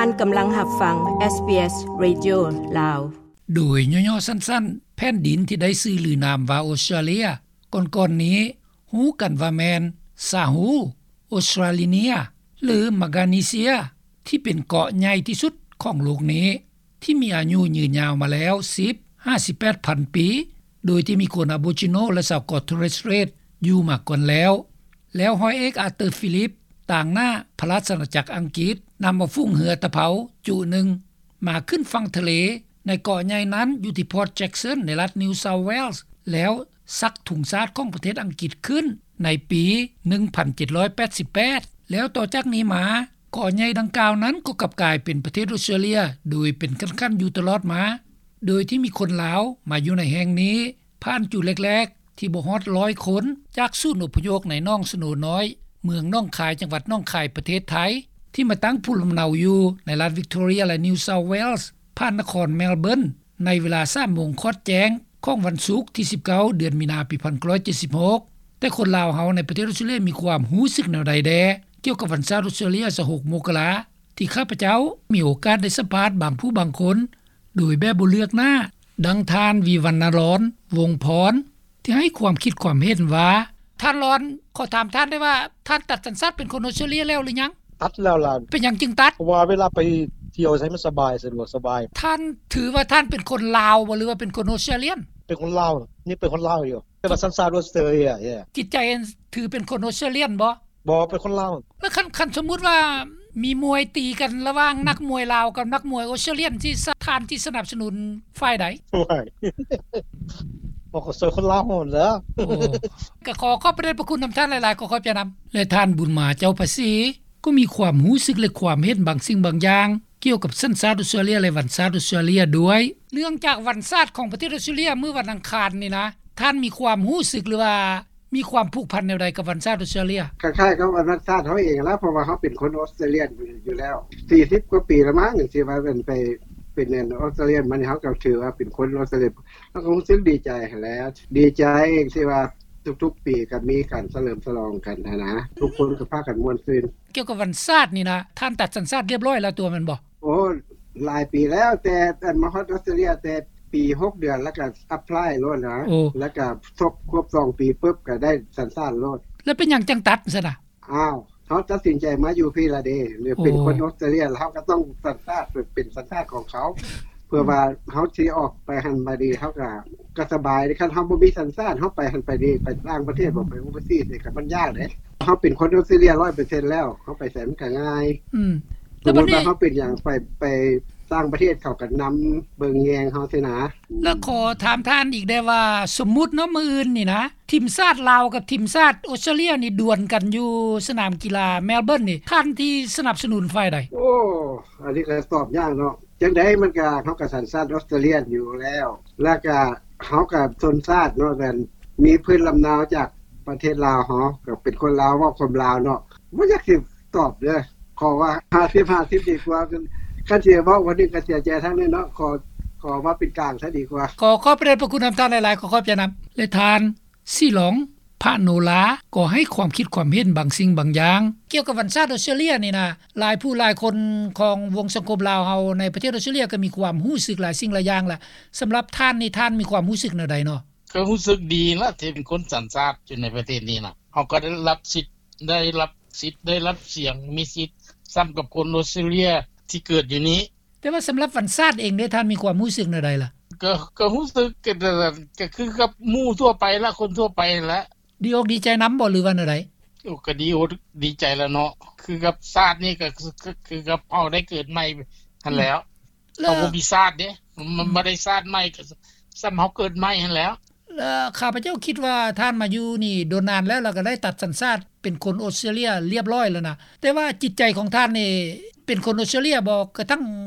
ທ່ານກຳລັງຮັບຟັງ ເອສບີເອສ ເຣດິໂອ ລາວ. ໂດຍຫຍໍ້ໆສັ້ນໆ, ແຜ່ນດິນທີ່ໄດ້ຊື່ລືນາມວ່າອົດສະຕຣາເລຍ ກ່ອນໆນີ້ຮູ້ກັນວ່າແມ່ນ ຊາຮູ້, ອົດສະຕຣາລີເນຍ ຫຼື ມາການີເຊຍ ທີ່ເປັນເກາະໃຫຍ່ທີ່ສຸດຂອງໂລກນີ້ ທີ່ມີອາຍຸຍືນຍາວມາແລ້ວ ສິບ ຫາ ສິບແປດພັນປີ ໂດຍທີ່ມີຄົນອາໂບຈິໂນ ແລະ ຊາວເກາະໂທເຣສເຕຣຽດຢູ່ມາກ່ອນແລ້ວ. ແລ້ວຮ້ອຍເອກ ອາເຕີ ຟີລິບ ຕາງໜ້າພະລາຊະອານາຈັກອັງກິດ ນຳເອົາຝູງເຮືອຕະເພົາຈຸໜຶ່ງ ມາຂຶ້ນຝັ່ງທະເລໃນເກາະໃຫຍ່ນັ້ນ ຢູ່ທີ່ພອດແຈັກສັນ ໃນລັດນິວເຊົາເວລສ໌ ແລ້ວສັກທຸງຊາດຂອງປະເທດອັງກິດຂຶ້ນໃນປີໜຶ່ງພັນເຈັດຮ້ອຍແປດສິບແປດ ແລ້ວຕໍ່ຈາກນີ້ມາ ເກາະໃຫຍ່ດັ່ງກ່າວນັ້ນກໍກັບກາຍເປັນປະເທດອົດສະຕຣາເລຍ ໂດຍເປັນຂັ້ນໆຢູ່ຕະຫຼອດມາ ໂດຍທີ່ມີຄົນລາວມາຢູ່ໃນແຫ່ງນີ້ ຜ່ານຈຸແລກໆທີ່ບໍ່ຮອດຮ້ອຍຄົນ ຈາກສູນອົບພະຍົບໃນໜອງສະໂນນ້ອຍ ເມືອງໜອງຄາຍ ຈັງຫວັດໜອງຄາຍ ປະເທດໄທ ທີ່ມາຕັ້ງພູມລຳເນົາຢູ່ໃນລັດວິກຕໍເຣຍ ແລະ ນິວເຊົາເວລສ໌ ຜ່ານນະຄອນແມລເບີນ ໃນເວລາສາມໂມງຄອດແຈ້ງຂອງວັນສຸກທີສິບເກົ້າ ເດືອນມີນາ ປີພັນເກົ້າຮ້ອຍເຈັດສິບຫົກ ແຕ່ຄົນລາວເຮົາໃນປະເທດອົດສະຕຣາເລຍມີຄວາມຮູ້ສຶກແນວໃດແດ່ ກ່ຽວກັບວັນຊາດອົດສະຕຣາເລຍ ຊາວຫົກ ມົກກະລາ ທີ່ຂ້າພະເຈົ້າມີໂອກາດໄດ້ສຳພາດບາງຜູ້ບາງຄົນ ໂດຍແບບບໍ່ເລືອກໜ້າ ດັ່ງທ່ານ ວິວັນນະລອນ ວົງພອນ ທີ່ໃຫ້ຄວາມຄິດຄວາມເຫັນວ່າ. ທ່ານລອນ, ຂໍຖາມທ່ານໄດ້ວ່າ ທ່ານຕັດສັນຊາດເປັນຄົນອົດສະຕຣາເລຍແລ້ວຫຼືຍັງ? ຕັດແລ້ວລະ. ເປັນຫຍັງຈຶ່ງຕັດ? ເພາະວ່າເວລາໄປທ່ຽວໃສມັນສະບາຍ, ສະດວກສະບາຍ. ທ່ານຖືວ່າທ່ານເປັນຄົນລາວບໍ່ ຫຼືວ່າເປັນຄົນອົດສະຕຣາເລຍ? ເປັນຄົນລາວ, ຍັງເປັນຄົນລາວຢູ່. ແຕ່ວ່າສັນຊາດອົດສະຕຣາເລຍ. ຈິດໃຈຖືເປັນຄົນອົດສະຕຣາເລຍບໍ່? ບໍ່, ເປັນຄົນລາວ. ແລ້ວຄັນ, ຄັນສົມມຸດວ່າມີມວຍຕີກັນລະຫວ່າງນັກມວຍລາວກັບນັກມວຍອົດສະຕຣາເລຍ ທີ່ສະ, ທ່ານທີ່ສະໜັບສະໜູນຝ່າຍໃດ? ໂອ້ຍ, ບໍ່, ກໍຊ່ວຍຄົນລາວຫັ້ນແຫຼະ. ໂອ້, ກໍຂໍຂອບພະເດດພະຄຸນນຳທ່ານຫຼາຍໆ, ຂໍຂອບໃຈນຳ. ແລະ ທ່ານ ບຸນມາ ເຈົ້າພາສີ ກໍມີຄວາມຮູ້ສຶກ ແລະ ຄວາມເຫັນບາງສິ່ງບາງຢ່າງ ກ່ຽວກັບສັນຊາດອົດສະຕຣາເລຍ ແລະ ວັນຊາດອົດສະຕຣາເລຍດ້ວຍ. ເນື່ອງຈາກວັນຊາດຂອງປະເທດອົດສະຕຣາເລຍ ມື້ວັນອັງຄານນີ້ນະ, ທ່ານມີຄວາມຮູ້ສຶກ ຫຼືວ່າມີຄວາມຜູກພັນແນວໃດກັບວັນຊາດອົດສະຕຣາເລຍ? ຄ້າຍໆກັບວັນຊາດເຮົາເອງລະ, ເພາະວ່າເຮົາເປັນຄົນອົດສະຕຣາເລຍຢູ່ແລ້ວ ສີ່ສິບກວ່າປີລະມັ້ງ ທີ່ວ່າເປັນໄປ ເປັນອັນ ອົດສະຕຣາເລຍ. ມັນເຮົາກໍຖືວ່າເປັນຄົນອົດສະຕຣາເລຍ, ເຮົາກໍຮູ້ສຶກດີໃຈຫັ້ນແຫຼະ. ດີໃຈທີ່ວ່າທຸກໆປີກໍມີການສະເຫຼີມສະຫຼອງກັນຫັ້ນນະ, ທຸກຄົນກໍພາກັນມ່ວນຊື່ນ. ກ່ຽວກັບວັນຊາດນີ້ນະ, ທ່ານຕັດສັນຊາດລຽບຮ້ອຍແລ້ວຕົວະແມ່ນບໍ່? ໂອ້, ຫຼາຍປີແລ້ວ, ແຕ່ອັນມາຮອດອົດສະຕຣາເລຍແຕ່ປີຫົກເດືອນ ແລ້ວກໍແອັບພລາຍໂລດນະ. ໂອ້, ແລ້ວກໍຄົບ, ຄົບສອງປີປຶບ ກໍໄດ້ສັນຊາດໂລດ. ແລ້ວເປັນຫຍັງຈັ່ງຕັດຊັ້ນນະ? ອ້າວ, ເຮົາຕັດສິນໃຈມາຢູ່ພີ້ລະເດ, ເປັນຄົນ ໂອ້, ອົດສະຕຣາເລຍ, ເຮົາກໍຕ້ອງສັນຊາດ ເປັນສັນຊາດຂອງເຂົາ. ເພື່ອວ່າເຮົາຊິອອກໄປຫັ້ນມາດີ ເຮົາກໍ ກໍສະບາຍເດ້. ຄັນເຮົາບໍ່ມີສັນຊາດ ເຮົາໄປຫັ້ນໄປນີ້ ໄປຕ່າງປະເທດບໍ ໄປໂອເວີຊີນີ້ ກໍມັນຍາກເດ້. ເຮົາເປັນຄົນອົດສະຕຣາເລຍຮ້ອຍເປີເຊັນແລ້ວ ເຮົາໄປໃສມັນກໍງ່າຍ. ອືມ, ສົມມຸດວ່າເຮົາເປັນຫຍັງ ໄປ ໄປຕ່າງປະເທດ ເຂົາກໍນຳເບິ່ງແຍງເຮົາຊີ້ນະ. ແລ້ວຂໍຖາມທ່ານອີກແດ່ວ່າ ສົມມຸດເນາະ ມື້ອື່ນນີ້ນະ ທີມຊາດລາວກັບທີມຊາດອົດສະຕຣາເລຍນີ້ ດວນກັນຢູ່ສະໜາມກິລາແມລເບີນນີ້ ທ່ານທີ່ສະໜັບສະໜູນຝ່າຍໃດ? ໂອ້, ອັນນີ້ກໍຕອບຍາກເນາະ. ຈັ່ງໃດມັນກໍ ເຮົາກໍສັນຊາດອົດສະຕຣາເລຍຢູ່ແລ້ວ, ແລ້ວກໍເຮົາກໍຊົນຊາດເນາະ, ແມ່ນມີພື້ນລຳເນົາຈາກປະເທດລາວ, ເຮົາກໍເປັນຄົນລາວ ເວົ້າຄວາມລາວເນາະ. ບໍ່ຢາກຊິຕອບເດີ້, ຂໍວ່າຫ້າສິບຫ້າສິບດີກວ່າ. ຄັນຊິເວົ້າຄົນໜຶ່ງກໍເສຍໃຈທາງໜຶ່ງເນາະ, ຂໍ ຂໍວ່າເປັນກາງຊະດີກວ່າ. ຂໍຂອບພະເດດພະຄຸນນຳທ່ານຫຼາຍໆ, ຂໍຂອບໃຈນຳ. ແລະ ທ່ານ ສີຫຼອງ ພະໂນລາ ກໍໃຫ້ຄວາມຄິດຄວາມເຫັນບາງສິ່ງບາງຢ່າງ ກ່ຽວກັບວັນຊາດອົດສະຕຣາເລຍນີ້ນະ. ຫຼາຍຜູ້ຫຼາຍຄົນຂອງວົງສັງຄົມລາວເຮົາໃນປະເທດອົດສະຕຣາເລຍ ກໍມີຄວາມຮູ້ສຶກຫຼາຍສິ່ງຫຼາຍຢ່າງລະ. ສຳລັບທ່ານນີ້ ທ່ານມີຄວາມຮູ້ສຶກແນວໃດເນາະ? ກໍຮູ້ສຶກດີລະ ທີ່ເປັນຄົນສັນຊາດຢູ່ໃນປະເທດນີ້ນະ. ເຮົາກໍໄດ້ຮັບສິດ ໄດ້ຮັບສິດ ໄດ້ຮັບສຽງ ມີສິດສ່ຳກັບຄົນອົດສະຕຣາເລຍທີ່ເກີດຢູ່ນີ້. ແຕ່ວ່າສຳລັບວັນຊາດເອງເດ ທ່ານມີຄວາມຮູ້ສຶກແນວໃດລະ? ກໍ ກໍຮູ້ສຶກ ກໍ ກໍຄືກັບໝູ່ທົ່ວໄປລະ ຄົນທົ່ວໄປຫັ້ນລະ. ດີອົກດີໃຈນຳບໍ່ ຫຼືວ່າແນວໃດ? ໂອ້ ກໍດີອົກດີໃຈລະເນາະ, ຄືກັບຊາດນີ້ ກໍ ກໍຄືກັບເຮົາໄດ້ເກີດໃໝ່ຫັ້ນແຫຼ້ວ. ເຮົາບໍ່ມີຊາດເດ້, ມັນ ອືມ ບໍ່ໄດ້ຊາດໃໝ່, ກໍສ່ຳເຮົາເກີດໃໝ່ຫັ້ນແຫຼ້ວ. ແລະ ຂ້າພະເຈົ້າຄິດວ່າທ່ານມາຢູ່ນີ້ດົນນານແລ້ວ ແລ້ວກໍໄດ້ຕັດສັນຊາດເປັນຄົນອົດສະຕຣາເລຍລຽບຮ້ອຍແລ້ວນະ. ແຕ່ວ່າຈິດໃຈຂອງທ່ານນີ້ເປັນຄົນອົດສະຕຣາເລຍບໍ່ ກະທັ່ງ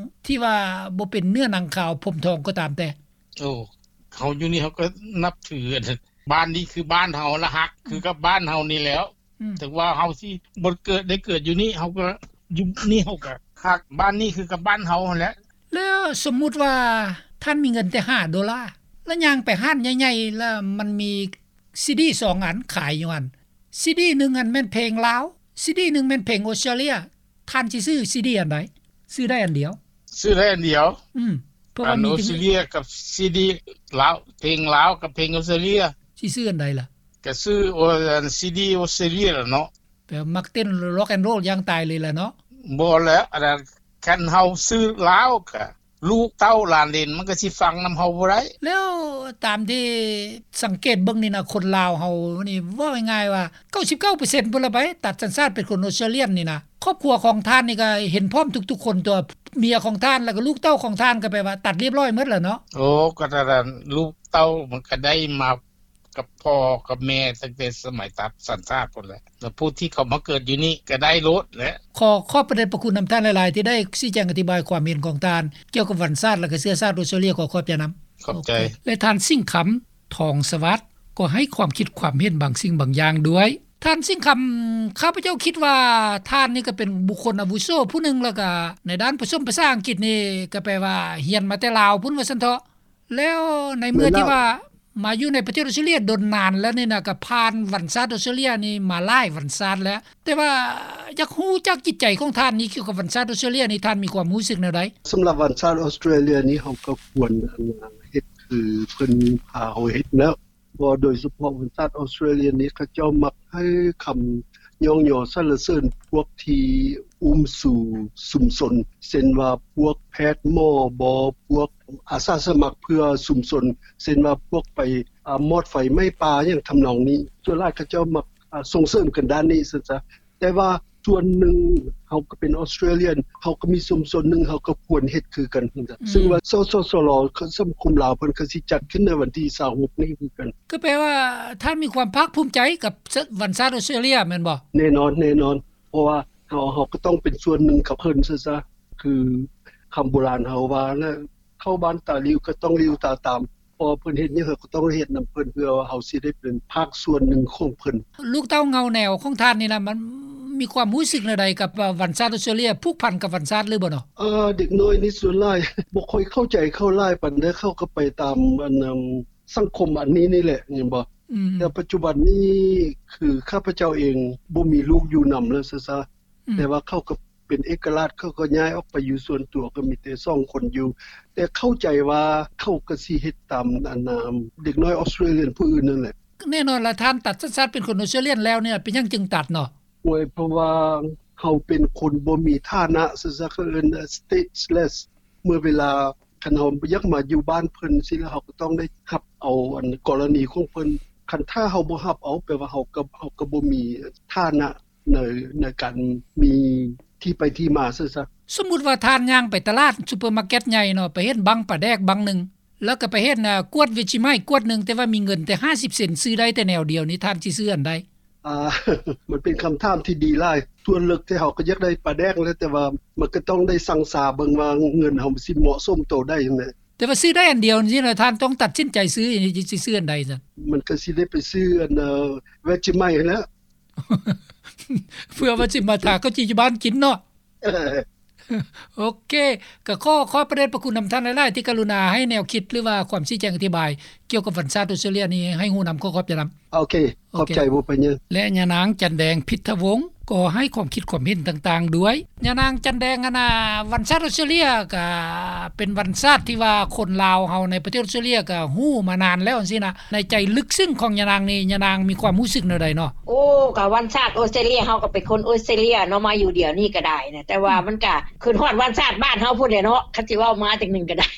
ທີ່ວ່າບໍ່ເປັນເນື້ອໜັງຂາວຜົມທອງກໍຕາມແຕ່? ໂອ້ ເຮົາຢູ່ນີ້ເຮົາກໍນັບຖື, ບ້ານນີ້ຄືບ້ານເຮົາລະ, ຮັກຄືກັບບ້ານເຮົານີ້ແຫຼ້ວ. ອືມ ເຖິງວ່າເຮົາຊິບໍ່ເກີດ ໄດ້ເກີດຢູ່ນີ້ ເຮົາກໍຢູ່ນີ້ ເຮົາກໍຮັກບ້ານນີ້ຄືກັບບ້ານເຮົາຫັ້ນແຫຼະ. ແລ້ວສົມມຸດວ່າທ່ານມີເງິນແຕ່ຫ້າໂດລາ ແລ້ວຍ່າງໄປຮ້ານໃຫຍ່ໆ ແລ້ວມັນມີຊີດີສອງອັນຂາຍຢູ່ຫັ້ນ, ຊີດີໜຶ່ງຫັ້ນແມ່ນເພງລາວ, ຊີດີໜຶ່ງແມ່ນເພງອົດສະຕຣາເລຍ, ທ່ານຊິຊື້ຊີດີອັນໃດ? ຊື້ໄດ້ອັນດຽວ ຊື້ໄດ້ອັນດຽວ ອືມ ເພາະວ່າມີ ອັນ ອອສເຕຣເລຍກັບຊີດີລາວ ເພງລາວກັບເພງອອສເຕຣເລຍ ຊິຊື້ອັນໃດລະ? ກະຊື້ ໂອ ອັນ ຊີດີອອສເຕຣເລຍລະເນາະ ແຕ່ມັກເຕັ້ນ Rock and Roll ຢ່າງຕາຍເລີຍລະເນາະ. ບໍ່ແລ້ວ ອັນນັ້ນ ຄັນເຮົາຊື້ລາວກະ ລູກເຕົ້າຫຼານເລນມັນກໍຊິຟັງນຳເຮົາບໍ່ໄດ້. ແລ້ວຕາມທີ່ສັງເກດເບິ່ງນີ້ນະ ຄົນລາວເຮົານີ້ ເວົ້າງ່າຍໆວ່າ ເກົ້າສິບເກົ້າເປີເຊັນພຸ້ນລະໄປ ຕັດສັນຊາດເປັນຄົນອອສເຕຣເລຍນີ້ນະ. ຄອບຄົວຂອງທ່ານນີ້ກໍເຫັນພ້ອມທຸກໆຄົນຕົວະ ເມຍຂອງທ່ານ ແລ້ວກໍລູກເຕົ້າຂອງທ່ານ ກໍແປວ່າຕັດລຽບລ້ອຍໝົດແລ້ວເນາະ. ໂອ້ ກໍນັ້ນ ລູກເຕົ້າມັນກໍໄດ້ມາ ກັບພໍ່ກັບແມ່ຕັ້ງແຕ່ສະໄໝຕັດສັນຊາດພຸ້ນແຫຼະ ແລ້ວຜູ້ທີ່ເຂົ້າມາເກີດຢູ່ນີ້ກໍໄດ້ໂລດແຫຼະ. ຂໍຂອບພະເດດພະຄຸນນຳທ່ານຫຼາຍໆ ທີ່ໄດ້ຊີ້ແຈງອະທິບາຍຄວາມເຫັນຂອງທ່ານ ກ່ຽວກັບວັນຊາດ ແລະ ກະເຊື້ອຊາດອອສເຕຣເລຍ. ຂໍຂອບໃຈນຳ. ຂອບໃຈ. ແລະ ທ່ານ ສິງຄຳ ທອງສະຫວັດ ກໍໃຫ້ຄວາມຄິດຄວາມເຫັນບາງສິ່ງບາງຢ່າງດ້ວຍ. ທ່ານ ສິງຄຳ, ຂ້າພະເຈົ້າຄິດວ່າທ່ານນີ້ກໍເປັນບຸກຄົນອາວຸໂສຜູ້ໜຶ່ງ ແລ້ວກະໃນດ້ານປະສົມພາສາອັງກິດນີ້ ກໍແປວ່າຮຽນມາແຕ່ລາວພຸ້ນວ່າຊັ້ນເຖາະ. ແລ້ວໃນເມື່ອທີ່ວ່າມາຢູ່ໃນປະເທດອອສເຕຣເລຍດົນນານແລ້ວນີ້ນະ ກໍຜ່ານວັນຊາດອອສເຕຣເລຍນີ້ມາຫຼາຍວັນຊາດແລ້ວ, ແຕ່ວ່າຢາກຮູ້ຈັກຈິດໃຈຂອງທ່ານນີ້ ກ່ຽວກັບວັນຊາດອອສເຕຣເລຍນີ້ ທ່ານມີຄວາມຮູ້ສຶກແນວໃດ? ສຳລັບວັນຊາດອອສເຕຣເລຍນີ້ ເຮົາກໍຄວນ ອັນ ເຮັດຄືເພິ່ນພາເຮົາເຮັດແລ້ວ. ເພາະໂດຍສະເພາະວັນຊາດອອສເຕຣເລຍນີ້ ເຂົາເຈົ້າມັກໃຫ້ຄຳຍ້ອງຍໍສັນລະເສີນພວກທີ່ອຸ້ມຊູຊຸມຊົນ ເຊັ່ນວ່າພວກແພດໝໍບໍ ພວກອາສາສະໝັກເພື່ອຊຸມຊົນ ເຊັ່ນວ່າພວກໄປ ອາ ມອດໄຟໄໝ້ປ່າ ຫຍັງທຳນອງນີ້. ສ່ວນຫຼາຍເຂົາເຈົ້າມັກ ອາ ສົ່ງເສີມກັນດ້ານນີ້ຊັ້ນຊະ. ແຕ່ວ່າສ່ວນໜຶ່ງ ເຮົາກໍເປັນອອສເຕຣເລຍນ ເຮົາກໍມີຊຸມຊົນໜຶ່ງ ເຮົາກໍຄວນເຮັດຄືກັນ ອືມ ຊຶ່ງວ່າ ສສສລ ສັງຄົມລາວເພິ່ນກໍຊິຈັດຂຶ້ນໃນວັນທີຊາວຫົກນີ້ຄືກັນ. ກໍແປວ່າທ່ານມີຄວາມພາກພູມໃຈກັບ ສ- ວັນຊາດອອສເຕຣເລຍແມ່ນບໍ່? ແນ່ນອນ ແນ່ນອນ ເພາະວ່າເຮົາ ເຮົາກໍຕ້ອງເປັນສ່ວນໜຶ່ງກັບເພິ່ນຊະ ຄືຄຳໂບລານເຮົາວ່ານະ ເຂົ້າບ້ານຕາຫຼິວກໍຕ້ອງຫຼິວຕາຕາມ. ເພາະວ່າເພິ່ນເຮັດຫຍັງ ເຮົາກໍຕ້ອງເຮັດນຳເພິ່ນ ເພື່ອວ່າເຮົາຊິໄດ້ເປັນພາກສ່ວນໜຶ່ງຂອງເພິ່ນ. ລູກເຕົ້າເງົາແນວຂອງທ່ານນີ້ນະ ມັນມີຄວາມຮູ້ສຶກແນວໃດກັບ ອາ ວັນຊາດອອສເຕຣເລຍ? ຜູກພັນກັບວັນຊາດຫຼືບໍ່ເນາະ? ເອີ ເດັກນ້ອຍນີ້ສ່ວນຫຼາຍບໍ່ຄ່ອຍເຂົ້າໃຈເຂົາຫຼາຍປານໃດ ເຂົາກໍໄປຕາມ ອັນ ສັງຄົມອັນນີ້ນີ້ແຫຼະ ແມ່ນບໍ່? ອືມ ແຕ່ປັດຈຸບັນນີ້ ຄືຂ້າພະເຈົ້າເອງບໍ່ມີລູກຢູ່ນຳແລ້ວຊະ ອືມ ແຕ່ວ່າເຂົາກໍເປັນເອກະລາດ ເຂົາກໍຍ້າຍອອກໄປຢູ່ສ່ວນຕົວ ກໍມີແຕ່ສອງຄົນຢູ່ ແຕ່ເຂົ້າໃຈວ່າເຂົາກໍຊິເຮັດຕາມ ອັນ ເດັກນ້ອຍອອສເຕຣເລຍນຜູ້ອື່ນນັ້ນແຫຼະ. ແນ່ນອນລະ ທ່ານຕັດສັນຊາດເປັນຄົນອອສເຕຣເລຍນແລ້ວນີ້ ເປັນຫຍັງຈຶ່ງຕັດເນາະ? ໂອ້ຍ ເພາະວ່າເຮົາເປັນຄົນບໍ່ມີຖານະ ເຂົາເອີ້ນ stateless ເມື່ອເວລາ ຄັນເຮົາຢາກມາຢູ່ບ້ານເພິ່ນຊີ້ແລ້ວ ເຮົາກໍຕ້ອງໄດ້ຮັບເອົາ ອັນ ກໍລະນີຂອງເພິ່ນ. ຄັນຖ້າເຮົາບໍ່ຮັບເອົາ ແປວ່າເຮົາກໍ ເຮົາກໍບໍ່ມີຖານະໃນ ໃນການມີທີ່ໄປທີ່ມາຊັ້ນຊະ. ສົມມຸດວ່າທ່ານຍ່າງໄປຕະຫຼາດ ຊຸບເປີມາເກັດໃຫຍ່ເນາະ ໄປເຫັນບັ້ງປາແດກບັ້ງໜຶ່ງ ແລ້ວກໍໄປເຫັນ ອາ ກວດເວຈິໄມ ກວດໜຶ່ງ ແຕ່ວ່າມີເງິນແຕ່ຫ້າສິບເຊັນ ຊື້ໄດ້ແຕ່ແນວດຽວນີ້ ທ່ານຊິຊື້ອັນໃດ? ອາ ມັນເປັນຄຳຖາມທີ່ດີຫຼາຍ. ສ່ວນເລິກແທ້ເຮົາກໍຢາກໄດ້ປາແດກແຫຼະ ແຕ່ວ່າມັນກໍຕ້ອງໄດ້ຊັ່ງຊາເບິ່ງວ່າເງິນເຮົາມັນຊິເໝາະສົມໂຕໃດຫັ້ນແຫຼະ. ແຕ່ວ່າຊື້ໄດ້ອັນດຽວນີ້ນະ ທ່ານຕ້ອງຕັດສິນໃຈຊື້ ຊິຊື້ອັນໃດຊັ້ນ? ມັນກໍຊິໄດ້ໄປຊື້ອັນ ເວຈິໄມຫັ້ນແຫຼະ ເພື່ອວ່າຊິມາທາເຂົ້າຈີ່ຢູ່ບ້ານກິນເນາະ. ເອີ ໂອເຄ ກໍຂໍຂອບພະເດດພະຄຸນນຳທ່ານຫຼາຍໆ ທີ່ກະລຸນາໃຫ້ແນວຄິດ ຫຼືວ່າຄວາມຊີ້ແຈງອະທິບາຍ ກ່ຽວກັບວັນຊາດອອສເຕຣເລຍນີ້ໃຫ້ຮູ້ນຳ. ຂໍຂອບໃຈນຳ. ໂອເຄ ໂອເຄ ຂອບໃຈ ບໍ່ເປັນຫຍັງ. ແລະ ຍານາງ ຈັນແດງ ພິດທະວົງ ກໍໃຫ້ຄວາມຄິດຄວາມເຫັນຕ່າງໆດ້ວຍ. ຍານາງ ຈັນແດງ ອັນນ່າ ວັນຊາດອອສເຕຣເລຍກະເປັນວັນຊາດທີ່ວ່າຄົນລາວເຮົາໃນປະເທດອອສເຕຣເລຍກະຮູ້ມານານແລ້ວຈັ່ງຊີ້ນະ. ໃນໃຈເລິກເຊິ່ງຂອງຍານາງນີ້ ຍານາງມີຄວາມຮູ້ສຶກແນວໃດເນາະ? ໂອ້ ກະວັນຊາດອອສເຕຣເລຍ ເຮົາກໍເປັນຄົນອອສເຕຣເລຍເນາະ ມາຢູ່ດຽວນີ້ກໍໄດ້ນະ ແຕ່ວ່າ ອືມ ມັນກະ ຄືຮອດວັນຊາດບ້ານເຮົາພຸ້ນແຫຼະເນາະ ຄັນຊິເວົ້າມາຈັ່ງໜຶ່ງກໍໄດ້.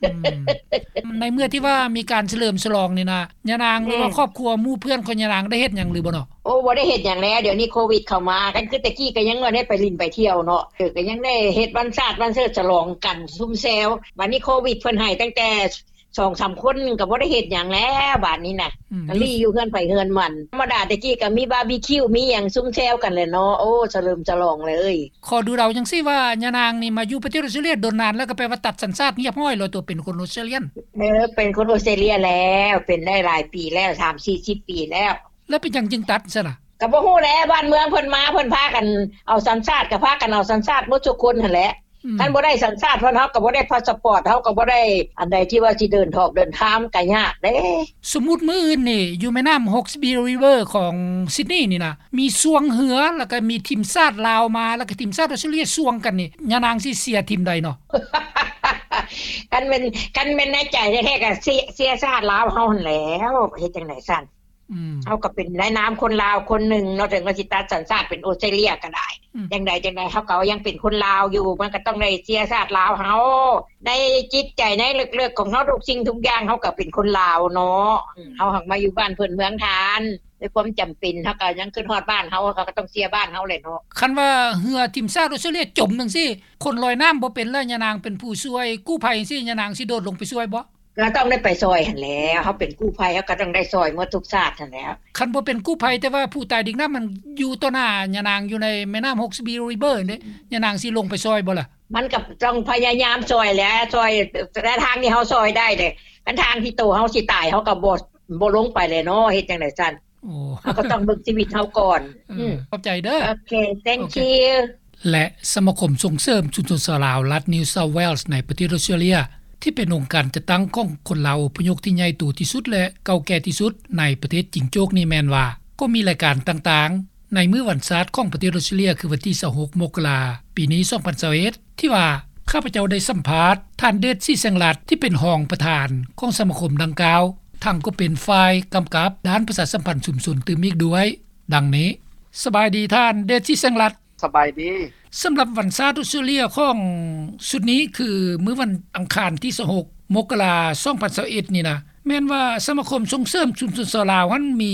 ອືມ ໃນເມື່ອທີ່ວ່າມີການສະເຫຼີມສະຫຼອງນີ້ນະ ຍານາງ ອືມ ຫຼືວ່າຄອບຄົວໝູ່ເພື່ອນຂອງຍານາງໄດ້ເຮັດຫຍັງຫຼືບໍ່ເນາະ? ໂອ້ ບໍ່ໄດ້ເຮັດຫຍັງແລ້ວ ດຽວນີ້ໂຄວິດເຂົ້າມາ ຄັນຄືແຕ່ກີ້ກໍຍັງວ່າໄດ້ໄປຫຼິ້ນໄປທ່ຽວເນາະ ເອີ ກໍຍັງໄດ້ເຮັດວັນຊາດວັນເຊີດສະຫຼອງກັນຊຸມແຊວ. ບາດນີ້ໂຄວິດເພິ່ນໃຫ້ຕັ້ງແຕ່ສອງສາມຄົນ ກໍບໍ່ໄດ້ເຮັດຫຍັງແລ້ວບາດນີ້ນະ ອືມ ກໍລີ້ຢູ່ເຮືອນໃຜເຮືອນມັນ. ທຳມະດາແຕ່ກີ້ກໍມີບາບີຄິວ ມີຫຍັງຊຸມແຊວກັນແຫຼະເນາະ. ໂອ້ ສະເຫຼີມສະຫຼອງເລີຍ. ຂໍດູເດົາຈັ່ງຊີ້ວ່າ ຍານາງນີ້ມາຢູ່ປະເທດອອສເຕຣເລຍດົນນານແລ້ວ ກໍແປວ່າຕັດສັນຊາດຮຽບຮ້ອຍແລ້ວ ຕົວເປັນຄົນອອສເຕຣເລຍນ? ເອີ ເປັນຄົນອອສເຕຣເລຍແລ້ວ ເປັນໄດ້ຫຼາຍປີແລ້ວ ສາມສີ່ສິບປີແລ້ວ. ແລ້ວເປັນຫຍັງຈຶ່ງຕັດຊັ້ນນະ? ກໍບໍ່ຮູ້ແຫຼະ ບ້ານເມືອງເພິ່ນມາ ເພິ່ນພາກັນເອົາສັນຊາດ ກໍພາກັນເອົາສັນຊາດໝົດທຸກຄົນຫັ້ນແຫຼະ. ອືມ ຄັນບໍ່ໄດ້ສັນຊາດເພິ່ນ ເຮົາກໍບໍ່ໄດ້ພາສປອດ ເຮົາກໍບໍ່ໄດ້ອັນໃດທີ່ວ່າຊິເດີນທອກເດີນທາງ ກໍຍາກເດ້. ສົມມຸດມື້ອື່ນນີ້ ຢູ່ແມ່ນ້ຳ Hawkesbury River ຂອງ Sydney ນີ້ນະ ມີຊ່ວງເຮືອ ແລ້ວກໍມີທີມຊາດລາວມາ ແລ້ວກໍທີມຊາດອອສເຕຣເລັຽຊ່ວງກັນນີ້ ຍານາງຊິເຊຍທີມໃດເນາະ? ຄັນແມ່ນ ຄັນແມ່ນໃນໃຈແທ້ໆ ກໍເຊຍ ເຊຍຊາດລາວເຮົາຫັ້ນແຫຼ້ວ ເຮັດຈັ່ງໃດຊັ້ນ? ອືມ ເຮົາກໍເປັນໃນນາມຄົນລາວຄົນໜຶ່ງເນາະ ເຖິງວ່າຊິຕັດສັນຊາດເປັນອອສເຕຣເລັຽກໍໄດ້. ອືມ ຈັ່ງໃດຈັ່ງໃດ ເຮົາກໍຍັງເປັນຄົນລາວຢູ່ ມັນກໍຕ້ອງໄດ້ເຊຍຊາດລາວເຮົາ. ໃນຈິດໃຈໃນເລິກໆຂອງເຮົາ ທຸກສິ່ງທຸກຢ່າງ ເຮົາກໍເປັນຄົນລາວເນາະ. ອືມ ເຮົາຫາກມາຢູ່ບ້ານເພິ່ນເມືອງທ່ານ ດ້ວຍຄວາມຈຳເປັນ ເຮົາກໍຍັງຄິດຮອດບ້ານເຮົາ ເຮົາກໍຕ້ອງເຊຍບ້ານເຮົາແຫຼະເນາະ. ຄັນວ່າເຮືອທີມຊາດອອສເຕຣເລັຽຈົມຈັ່ງຊີ້ ຄົນລອຍນ້ຳບໍ່ເປັນແລ້ວ ຍານາງເປັນຜູ້ຊ່ວຍກູ້ໄພຈັ່ງຊີ້ ຍານາງຊິໂດດລົງໄປຊ່ວຍບໍ່? ກໍຕ້ອງໄດ້ໄປຊ່ອຍຫັ້ນແຫຼ້ວ ເຮົາເປັນກູ້ໄພ ເຮົາກໍຕ້ອງໄດ້ຊ່ອຍໝົດທຸກຊາດຫັ້ນແຫຼ້ວ. ຄັນບໍ່ເປັນກູ້ໄພ ແຕ່ວ່າຜູ້ຕາຍດິກນ້ຳມັນຢູ່ຕໍ່ໜ້າຍານາງ ຢູ່ໃນແມ່ນ້ຳ Hawkesbury River ເດ້ ຍານາງຊິລົງໄປຊ່ອຍບໍ່ລະ? ມັນກໍຕ້ອງພະຍາຍາມຊ່ອຍແຫຼະ ຊ່ອຍແຕ່ທາງທີ່ເຮົາຊ່ອຍໄດ້ເດ້. ຄັນທາງທີ່ໂຕເຮົາຊິຕາຍ ເຮົາກໍບໍ່ ບໍ່ລົງໄປແຫຼະເນາະ ເຮັດຈັ່ງໃດຊັ້ນ? ໂອ້ ເຮົາກໍຕ້ອງເບິ່ງຊີວິດເຮົາກ່ອນ. ເອີ ອືມ ຂອບໃຈເດີ. ໂອເຄ thank you. ແລະ ສະມາຄົມສົ່ງເສີມຊຸມຊົນຊາວລາວລັດ New South Wales ໃນປະເທດອອສເຕຣເລັຽ ທີ່ເປັນອົງການຈັດຕັ້ງຂອງຄົນລາວອົບພະຍົບທີ່ໃຫຍ່ໂຕທີ່ສຸດ ແລະ ເກົ່າແກ່ທີ່ສຸດໃນປະເທດຈິງໂຈກນີ້ແມ່ນວ່າ ກໍມີລາຍການຕ່າງໆ ໃນມື້ວັນຊາດຂອງປະເທດອອສເຕຣເລັຽ ຄືວັນທີຊາວຫົກ ມົກກະລາ ປີນີ້ ສອງພັນຊາວເອັດ ທີ່ວ່າຂ້າພະເຈົ້າໄດ້ສຳພາດທ່ານ ເດດ ສີແສງລັດ ທີ່ເປັນຮອງປະທານຂອງສະມາຄົມດັ່ງກ່າວ ທັງກໍເປັນຝ່າຍກຳກັບດ້ານປະຊາສຳພັນຊຸມຊົນຕື່ມອີກດ້ວຍ ດັ່ງນີ້. ສະບາຍດີທ່ານ ເດດ ສີແສງລັດ. ສະບາຍດີ. ສຳລັບວັນຊາດອອສເຕຣເລັຽຂອງຊຸດນີ້ ຄືມື້ວັນອັງຄານທີຊາວຫົກ ມົກກະລາ ສອງພັນຊາວເອັດ ນີ້ນະ ແມ່ນວ່າສະມາຄົມສົ່ງເສີມຊຸມຊົນຊາວລາວຫັ້ນມີ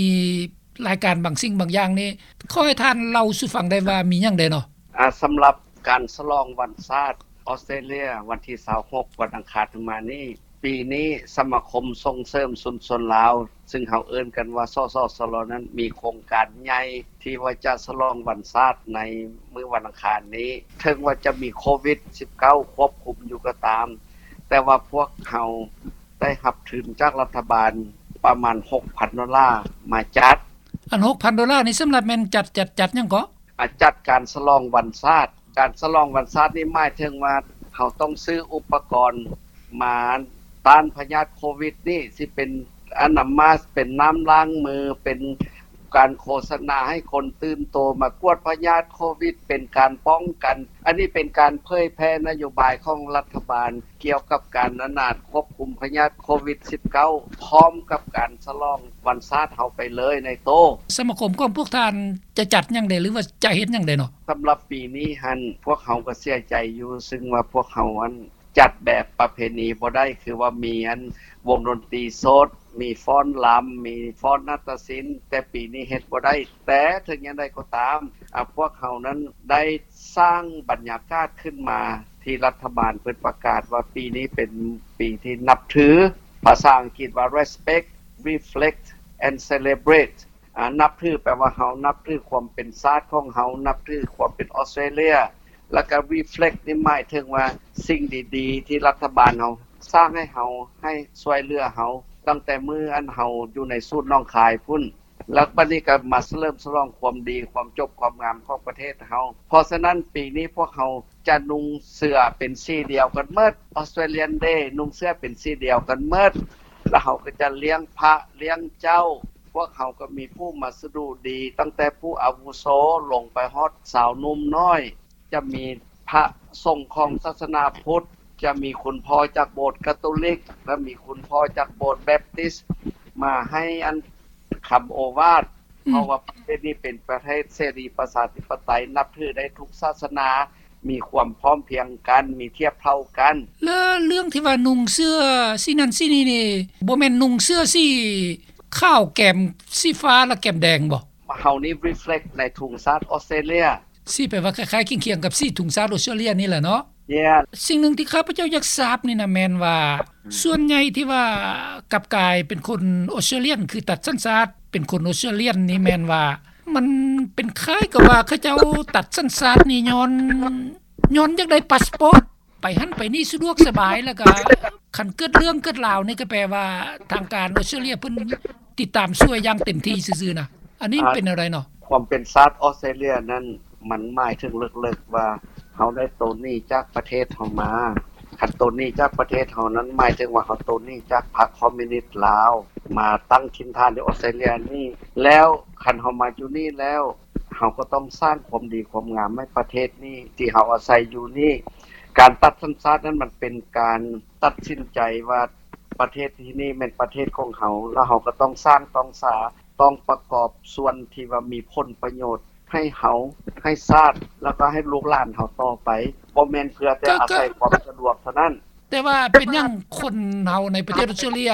ລາຍການບາງສິ່ງບາງຢ່າງນີ້ ຂໍໃຫ້ທ່ານເລົ່າສູ່ຟັງໄດ້ວ່າມີຫຍັງແດ່ເນາະ? ອາ ສຳລັບການສະຫຼອງວັນຊາດອອສເຕຣເລັຽ ວັນທີຊາວຫົກ ວັນອັງຄານທີ່ມານີ້ ປີນີ້ສະມາຄົມສົ່ງເສີມຊຸມຊົນລາວ ຊຶ່ງເຮົາເອີ້ນກັນວ່າ ສສຊລ ນັ້ນ ມີໂຄງການໃຫຍ່ທີ່ວ່າຈະສະຫຼອງວັນຊາດໃນມື້ວັນອັງຄານນີ້. ເຖິງວ່າຈະມີໂຄວິດສິບເກົ້າຄວບຄຸມຢູ່ກໍຕາມ, ແຕ່ວ່າພວກເຮົາໄດ້ຮັບທຶນຈາກລັດຖະບານປະມານຫົກພັນໂດລາມາຈັດ. ອັນຫົກພັນໂດລານີ້ ສຳລັບແມ່ນຈັດ ຈັດ ຈັດຫຍັງເກາະ? ອາ ຈັດການສະຫຼອງວັນຊາດ. ການສະຫຼອງວັນຊາດນີ້ ໝາຍເຖິງວ່າເຮົາຕ້ອງຊື້ອຸປະກອນມາຕ້ານພະຍາດໂຄວິດນີ້ ຊິເປັນອະນາມາສ ເປັນນ້ຳລ້າງມື ເປັນການໂຄສະນາໃຫ້ຄົນຕື່ນໂຕມາກວດພະຍາດໂຄວິດ ເປັນການປ້ອງກັນ. ອັນນີ້ເປັນການເຜີຍແຜ່ນະໂຍບາຍຂອງລັດຖະບານ ກ່ຽວກັບການອະນາດຄວບຄຸມພະຍາດໂຄວິດສິບເກົ້າ ພ້ອມກັບການສະຫຼອງວັນຊາດເຮົາໄປເລີຍໃນໂຕ. ສະມາຄົມຂອງພວກທ່ານຈະຈັດຫຍັງແດ່ ຫຼືວ່າຈະເຮັດຫຍັງແດ່ເນາະ? ສຳລັບປີນີ້ຫັ້ນ ພວກເຮົາກໍເສຍໃຈຢູ່ ຊຶ່ງວ່າພວກເຮົາຫັ້ນຈັດແບບປະເພນີບໍ່ໄດ້ ຄືວ່າມີອັນວົງດົນຕີສົດ ມີຟ້ອນລຳ ມີຟ້ອນນາດຕະສິນ ແຕ່ປີນີ້ເຮັດບໍ່ໄດ້. ແຕ່ເຖິງຢ່າງໃດກໍຕາມ ອາ ພວກເຮົານັ້ນໄດ້ ສ້າງບັນຍາກາດຂຶ້ນມາ ທີ່ລັດຖະບານເພິ່ນປະກາດວ່າປີນີ້ເປັນປີທີ່ນັບຖື ພາສາອັງກິດວ່າ Respect, Reflect and Celebrate. ອາ ນັບຖືແປວ່າເຮົານັບຖືຄວາມເປັນຊາດຂອງເຮົາ, ນັບຖືຄວາມເປັນອອສເຕຣເລັຽ ແລ້ວກໍ Reflect ນີ້ໝາຍເຖິງວ່າສິ່ງດີໆ ທີ່ລັດຖະບານເຮົາສ້າງໃຫ້ເຮົາ, ໃຫ້ຊ່ວຍເຫຼືອເຮົາ ຕັ້ງແຕ່ມື້ອັນເຮົາຢູ່ໃນສູນໜອງຄາຍພຸ້ນ. ແລ້ວບັດນີ້ກໍມາສະເຫຼີມສະຫຼອງຄວາມດີ, ຄວາມຈົບຄວາມງາມຂອງປະເທດເຮົາ. ເພາະສະນັ້ນ ປີນີ້ພວກເຮົາຈະນຸ່ງເສື້ອເປັນສີດຽວກັນໝົດ, Australian Day ນຸ່ງເສື້ອເປັນສີດຽວກັນໝົດ, ແລ້ວເຮົາກໍຈະລ້ຽງພະລ້ຽງເຈົ້າ. ພວກເຮົາກໍມີຜູ້ມາສະດຸດີ ຕັ້ງແຕ່ຜູ້ອາວຸໂສລົງໄປຮອດຊາວໜຸ່ມນ້ອຍ. ຈະມີພະສົງຂອງສາສະໜາພຸດ, ຈະມີຄຸນພໍ່ຈາກໂບດກາໂຕລິກ ແລະ ມີຄຸນພໍ່ຈາກໂບດແບບຕິສ ມາໃຫ້ອັນຄຳໂອວາດ, ອືມ ເພາະວ່າປະເທດນີ້ເປັນປະເທດເສລີປະຊາທິປະໄຕ, ນັບຖືໄດ້ທຸກສາສະໜາ, ມີຄວາມພ້ອມພຽງກັນ, ມີທຽບເທົ່າກັນ. ແລ້ວເລື່ອງທີ່ວ່ານຸ່ງເສື້ອສີນັ້ນສີນີ້ນີ້ ບໍ່ແມ່ນນຸ່ງເສື້ອສີຂາວແກມສີຟ້າ ແລະ ແກມແດງບໍ່? ເຮົານີ້ reflect ໃນທຸງຊາດອອສເຕຣເລັຽ. ສີແປວ່າຄ້າຍໆຄຽງໆກັບສີທຸງຊາດອອສເຕຣເລັຽນີ້ແຫຼະເນາະ. Yeah. ສິ່ງໜຶ່ງທີ່ຂ້າພະເຈົ້າຢາກຊາບນີ້ນະ ແມ່ນວ່າ ອືມ ສ່ວນໃຫຍ່ທີ່ວ່າກັບກາຍເປັນຄົນອອສເຕຣເລັຽ ຄືຕັດສັນຊາດເປັນຄົນອອສເຕຣເລັຽນີ້ ແມ່ນວ່າມັນເປັນຄ້າຍກັບວ່າເຂົາເຈົ້າຕັດສັນຊາດນີ້ຍ້ອນ ຍ້ອນຢາກໄດ້ພາສປອດ ໄປຫັ້ນໄປນີ້ສະດວກສະບາຍ ແລ້ວກະຄັນເກີດເລື່ອງເກີດລາວນີ້ ກະແປວ່າທາງການອອສເຕຣເລັຽເພິ່ນຕິດຕາມຊ່ວຍຢ່າງເຕັມທີ່ຊື່ໆນະ. ອັນນີ້ມັນເປັນແນວໃດເນາະ? ຄວາມເປັນຊາດອອສເຕຣເລັຽນັ້ນ ມັນໝາຍເຖິງເລິກໆວ່າ ເຮົາໄດ້ໂຕນໜີ້ຈາກປະເທດເຮົາມາ. ຄັນໂຕນໜີ້ຈາກປະເທດເຮົານັ້ນ ໝາຍເຖິງວ່າເຮົາໂຕນໜີ້ຈາກພັກຄອມມິວນິດລາວ ມາຕັ້ງຖິ່ນຖານຢູ່ອອສເຕຣເລຍນີ້. ແລ້ວຄັນເຮົາມາຢູ່ນີ້ແລ້ວ ເຮົາກໍຕ້ອງສ້າງຄວາມດີຄວາມງາມໃຫ້ປະເທດນີ້ ທີ່ເຮົາອາໄສຢູ່ນີ້. ການຕັດສັນຊາດນັ້ນ ມັນເປັນການຕັດສິນໃຈວ່າ ປະເທດທີ່ນີ້ແມ່ນປະເທດຂອງເຮົາ ແລ້ວເຮົາກໍຕ້ອງສ້າງຕ້ອງສາ ຕ້ອງປະກອບສ່ວນທີ່ວ່າມີຜົນປະໂຫຍດໃຫ້ເຮົາ ໃຫ້ຊາດ ແລ້ວກໍໃຫ້ລູກຫຼານເຮົາຕໍ່ໄປ, ບໍ່ແມ່ນເພື່ອແຕ່ ກໍ ອາໄສ ກໍ ຄວາມສະດວກເທົ່ານັ້ນ. ແຕ່ວ່າເປັນຫຍັງຄົນເຮົາໃນປະເທດອອສເຕຣເລຍ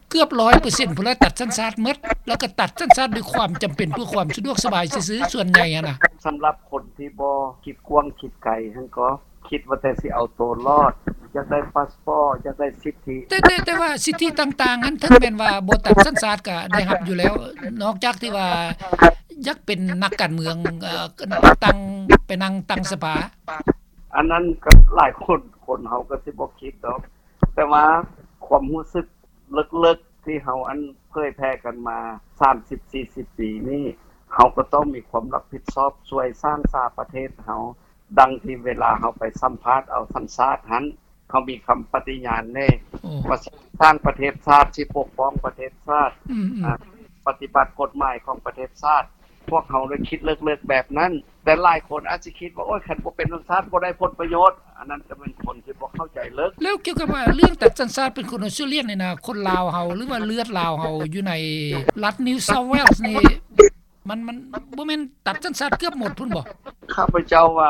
ເກືອບຮ້ອຍເປີເຊັນພຸ້ນລະ ຕັດສັນຊາດໝົດ ແລ້ວກໍຕັດສັນຊາດດ້ວຍຄວາມຈຳເປັນ ເພື່ອຄວາມສະດວກສະບາຍຊື່ໆ ສ່ວນໃຫຍ່ຫັ້ນນະ? ສຳລັບຄົນທີ່ບໍ່ຄິດກວ້າງຄິດໄກຫັ້ນກໍ ຄິດວ່າແຕ່ຊິເອົາໂຕລອດ, ຢາກໄດ້ພາສປອດ, ຢາກໄດ້ສິດທິ. ແຕ່ ແຕ່ ແຕ່ວ່າສິດທິຕ່າງໆຫັ້ນ ເຖິງແມ່ນວ່າບໍ່ຕັດສັນຊາດກໍໄດ້ຮັບຢູ່ແລ້ວ, ນອກຈາກທີ່ວ່າຢາກເປັນນັກການເມືອງ, ເອີ ນັກຕັ້ງ, ໄປນັ່ງຕັ້ງສະພາ. ອັນນັ້ນກໍຫຼາຍຄົນ, ຄົນເຮົາກໍຊິບໍ່ຄິດດອກ, ແຕ່ວ່າຄວາມຮູ້ສຶກເລິກໆ ທີ່ເຮົາ ອັນ ເຜີຍແຜ່ກັນມາສາມສິບສີ່ສິບປີນີ້, ເຮົາກໍຕ້ອງມີຄວາມຮັບຜິດຊອບຊ່ວຍສ້າງສາປະເທດເຮົາ. ດັ່ງທີ່ເວລາເຮົາໄປສຳພາດເອົາສັນຊາດຫັ້ນ ເຮົາມີຄຳປະຕິຍານເດ້ ໂອ້ ວ່າຊິສ້າງປະເທດຊາດ, ຊິປົກປ້ອງປະເທດຊາດ, ອືມໆ ອາ ປະຕິບັດກົດໝາຍຂອງປະເທດຊາດ. ພວກເຮົາໄດ້ຄິດເລິກໆແບບນັ້ນ, ແຕ່ຫຼາຍຄົນອາດຊິຄິດວ່າ ໂອ້ຍ ຄັນບໍ່ເປັນສັນຊາດບໍ່ໄດ້ຜົນປະໂຫຍດ, ອັນນັ້ນກໍແມ່ນຄົນທີ່ບໍ່ເຂົ້າໃຈເລິກ. ແລ້ວກ່ຽວກັບວ່າເລື່ອງຕັດສັນຊາດເປັນຄົນອອສເຕຣເລຍນີ້ນະ, ຄົນລາວເຮົາ ຫຼືວ່າເລືອດລາວເຮົາຢູ່ໃນລັດ New South Wales ນີ້ ມັນ ມັນບໍ່ແມ່ນຕັດສັນຊາດເກືອບໝົດພຸ້ນບໍ່? ຂ້າພະເຈົ້າວ່າ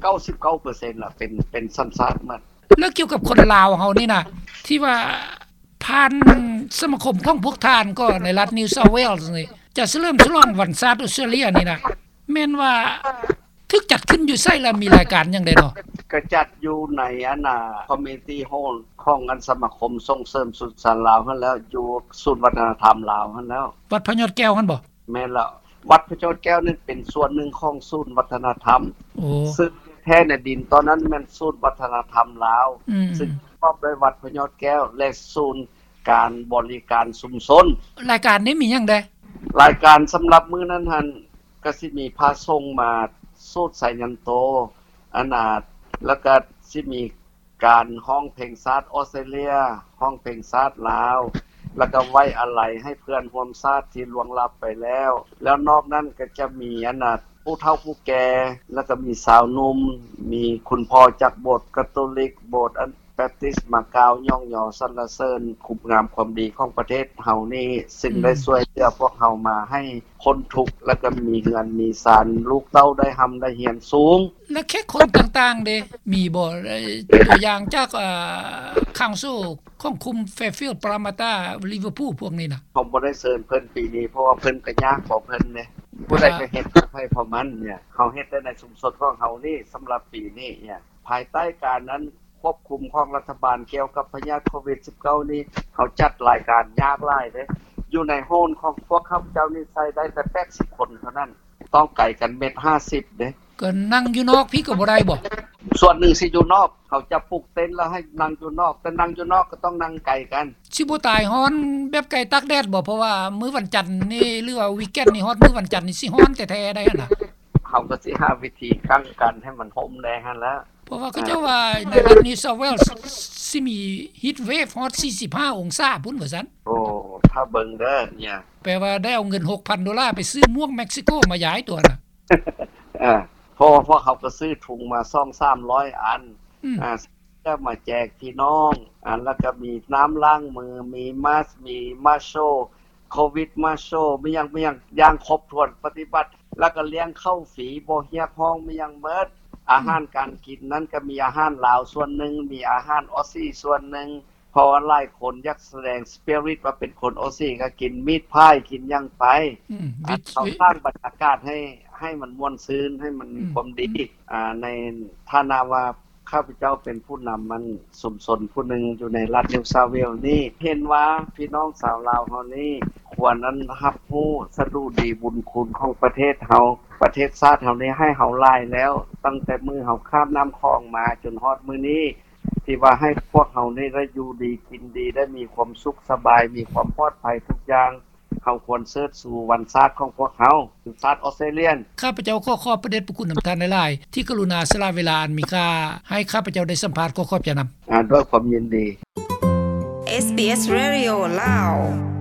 ເກົ້າສິບເກົ້າເປີເຊັນລະ ເປັນ ເປັນສັນຊາດໝົດ. ແລ້ວກ່ຽວກັບຄົນລາວເຮົານີ້ນະ ທີ່ວ່າຜ່ານສະມາຄົມຂອງພວກທ່ານກໍໃນລັດ New South Wales ນີ້ ຈະສະເຫຼີມສະຫຼອງວັນຊາດອອສເຕຣເລຍນີ້ນະ ແມ່ນວ່າຖືກຈັດຂຶ້ນຢູ່ໃສ ແລະ ມີລາຍການຫຍັງແດ່ເນາະ? ກະຈັດຢູ່ໃນ ອັນນ່າ Community Hall ຂອງ ອັນ ສະມາຄົມສົ່ງເສີມສຸດສານລາວຫັ້ນແລ້ວ, ຢູ່ສູນວັດທະນະທຳລາວຫັ້ນແລ້ວ. ວັດພະຍອດແກ້ວຫັ້ນບໍ່? ແມ່ນແລ້ວ, ວັດພະຍອດແກ້ວນັ້ນເປັນສ່ວນໜຶ່ງຂອງສູນວັດທະນະທຳ. ໂອ້ ຊຶ່ງແທ້ໃນດິນຕອນນັ້ນແມ່ນສູນວັດທະນະທຳລາວ, ອືມ ຊຶ່ງປະກອບດ້ວຍວັດພະຍອດແກ້ວ ແລະ ສູນການບໍລິການຊຸມຊົນ. ລາຍການນີ້ມີຫຍັງແດ່? ລາຍການສຳລັບມື້ນັ້ນຫັ້ນ ກໍຊິມີພະສົງມາສູດໄຊຍັນໂຕ ອັນນ່າ ແລ້ວກໍຊິມີ ການຮ້ອງເພງຊາດອອສເຕຣເລຍ, ຮ້ອງເພງຊາດລາວ, ແລ້ວກໍໄວ້ອາໄລໃຫ້ເພື່ອນຮ່ວມຊາດທີ່ລ່ວງລັບໄປແລ້ວ. ແລ້ວນອກນັ້ນກໍຈະມີ ອັນນ່າ ຜູ້ເຖົ້າຜູ້ແກ່, ແລ້ວກໍມີຊາວໜຸ່ມ, ມີຄຸນພໍ່ຈາກໂບດກາໂຕລິກ, ໂບດ ອັນ ແບບຕິສ ມາກ່າວຍ້ອງຍໍສັນລະເສີນຄຸນງາມຄວາມດີຂອງປະເທດເຮົານີ້, ຊຶ່ງ ອືມ ໄດ້ຊ່ວຍເຫຼືອພວກເຮົາມາໃຫ້ພົ້ນທຸກ ແລ້ວກໍມີເຮືອນມີຊານ, ລູກເຕົ້າໄດ້ຮ່ຳໄດ້ຮຽນສູງ. ແລະ ແຂກຄົນຕ່າງໆເດ ມີບໍ່? ຕົວຢ່າງຈາກ ເອີ Council ຂອງຄຸມ Fairfield Parramatta Liverpool ພວກນີ້ນະ. ເຮົາບໍ່ໄດ້ເຊີນເພິ່ນປີນີ້ ເພາະວ່າເພິ່ນກໍຍາກຂອງເພິ່ນເດ້, ຜູ້ໃດກໍເຮັດຂອງໃຜຂອງມັນເນຍ. ເຮົາເຮັດແຕ່ໃນຊຸມຊົນຂອງເຮົານີ້ ສຳລັບປີນີ້ເນຍ ພາຍໃຕ້ການ ອັນ ຄວບຄຸມຂອງລັດຖະບານກ່ຽວກັບພະຍາດໂຄວິດສິບເກົ້ານີ້ ເຮົາຈັດລາຍການຍາກຫຼາຍເດ້. ຢູ່ໃນໂຮນຂອງພວກຂ້າພະເຈົ້ານີ້ໃສ່ໄດ້ແຕ່ແປດສິບຄົນເທົ່ານັ້ນ. ຕ້ອງໄກກັນແມັດຫ້າສິບເດ້. ກໍນັ່ງຢູ່ນອກພີ້ກໍບໍ່ໄດ້ບໍ? ສ່ວນໜຶ່ງຊິຢູ່ນອກ, ເຂົາຈະປຸກເຕັນແລ້ວໃຫ້ນັ່ງຢູ່ນອກ, ແຕ່ນັ່ງຢູ່ນອກກໍຕ້ອງນັ່ງໄກກັນ. ຊິບໍ່ຕາຍຮ້ອນແບບໄກ່ຕາກແດດບໍ? ເພາະວ່າມື້ວັນຈັນນີ້ ຫຼືວ່າວີກເອັນນີ້ ຮອດມື້ວັນຈັນນີ້ຊິຮ້ອນແທ້ໆໄດ໋ຫັ້ນນະ. ເຮົາກໍຊິຫາວິທີກັ້ນກັນໃຫ້ມັນຮົ່ມແດ່ຫັ້ນແຫຼະ. ເພາະວ່າເຂົາເຈົ້າວ່າໃນລັດ New South Wales ຊິມີ heat wave ຮອດສີ່ສິບຫ້າອົງສາພຸ້ນວ່າຊັ້ນ. ໂອ້ ຖ້າເບິ່ງເດີເນຍ. ແປວ່າໄດ້ເອົາເງິນຫົກພັນໂດລາໄປຊື້ໝວກເມັກຊິໂກມາຢາຍຕົວນະ. ເອີ ເພາະວ່າພວກເຮົາກໍຊື້ທຸງມາສອງສາມຮ້ອຍອັນ ອືມ ອ່າ ເພື່ອມາແຈກພີ່ນ້ອງ, ອ່າ ແລ້ວກໍມີນ້ຳລ້າງມື, ມີມາສ, ມີ Marshall, ໂຄວິດ Marshall, ມີຫຍັງ ມີຫຍັງ ຢ່າງຄົບຖ້ວນປະຕິບັດ, ແລ້ວກໍລ້ຽງເຂົ້າຟຣີ ບໍ່ຮຽກຮ້ອງ ມີຫຍັງໝົດ. ອາຫານການກິນນັ້ນກໍມີອາຫານລາວສ່ວນໜຶ່ງ, ມີອາຫານອອສຊີສ່ວນໜຶ່ງ, ເພາະວ່າຫຼາຍຄົນຢາກສະແດງ spirit ວ່າເປັນຄົນໂອຊີ ກໍກິນມີດພາຍ ກິນຫຍັງໄປ ອືມ ອ່າ ເຮົາສ້າງບັນຍາກາດໃຫ້ ໃຫ້ມັນມ່ວນຊື່ນ ໃຫ້ມັນມີ ອືມ ຄວາມດີ ອືມ ອ່າ ໃນຖານະວ່າຂ້າພະເຈົ້າເປັນຜູ້ນຳ ອັນ ຊຸມຊົນຜູ້ໜຶ່ງຢູ່ໃນລັດ New South Wales ນີ້ ເຫັນວ່າພີ່ນ້ອງຊາວລາວເຮົານີ້ ຄວນ ອັນ ຮັບຮູ້ສະດຸດີບຸນຄຸນຂອງປະເທດເຮົາ ປະເທດຊາດເຮົານີ້ໃຫ້ເຮົາຫຼາຍແລ້ວ ຕັ້ງແຕ່ມື້ເຮົາຂ້າມນ້ຳຂອງມາຈົນຮອດມື້ນີ້ ທີ່ວ່າໃຫ້ພວກເຮົານີ້ໄດ້ຢູ່ດີກິນດີ ໄດ້ມີຄວາມສຸກສະບາຍ ມີຄວາມປອດໄພທຸກຢ່າງ. ເຮົາຄວນເຊີດຊູວັນຊາດຂອງພວກເຮົາ ຄືຊາດອອສເຕຣເລຍ. ຂ້າພະເຈົ້າຂໍຂອບພະເດດພະຄຸນນຳທ່ານຫຼາຍໆ ທີ່ກະລຸນາສະຫຼະເວລາອັນມີຄ່າ ໃຫ້ຂ້າພະເຈົ້າໄດ້ສຳພາດ. ຂໍຂອບໃຈນຳ. ອາ ດ້ວຍຄວາມຍິນດີ. ເອສບີເອສ ເຣດິໂອ ລາວ.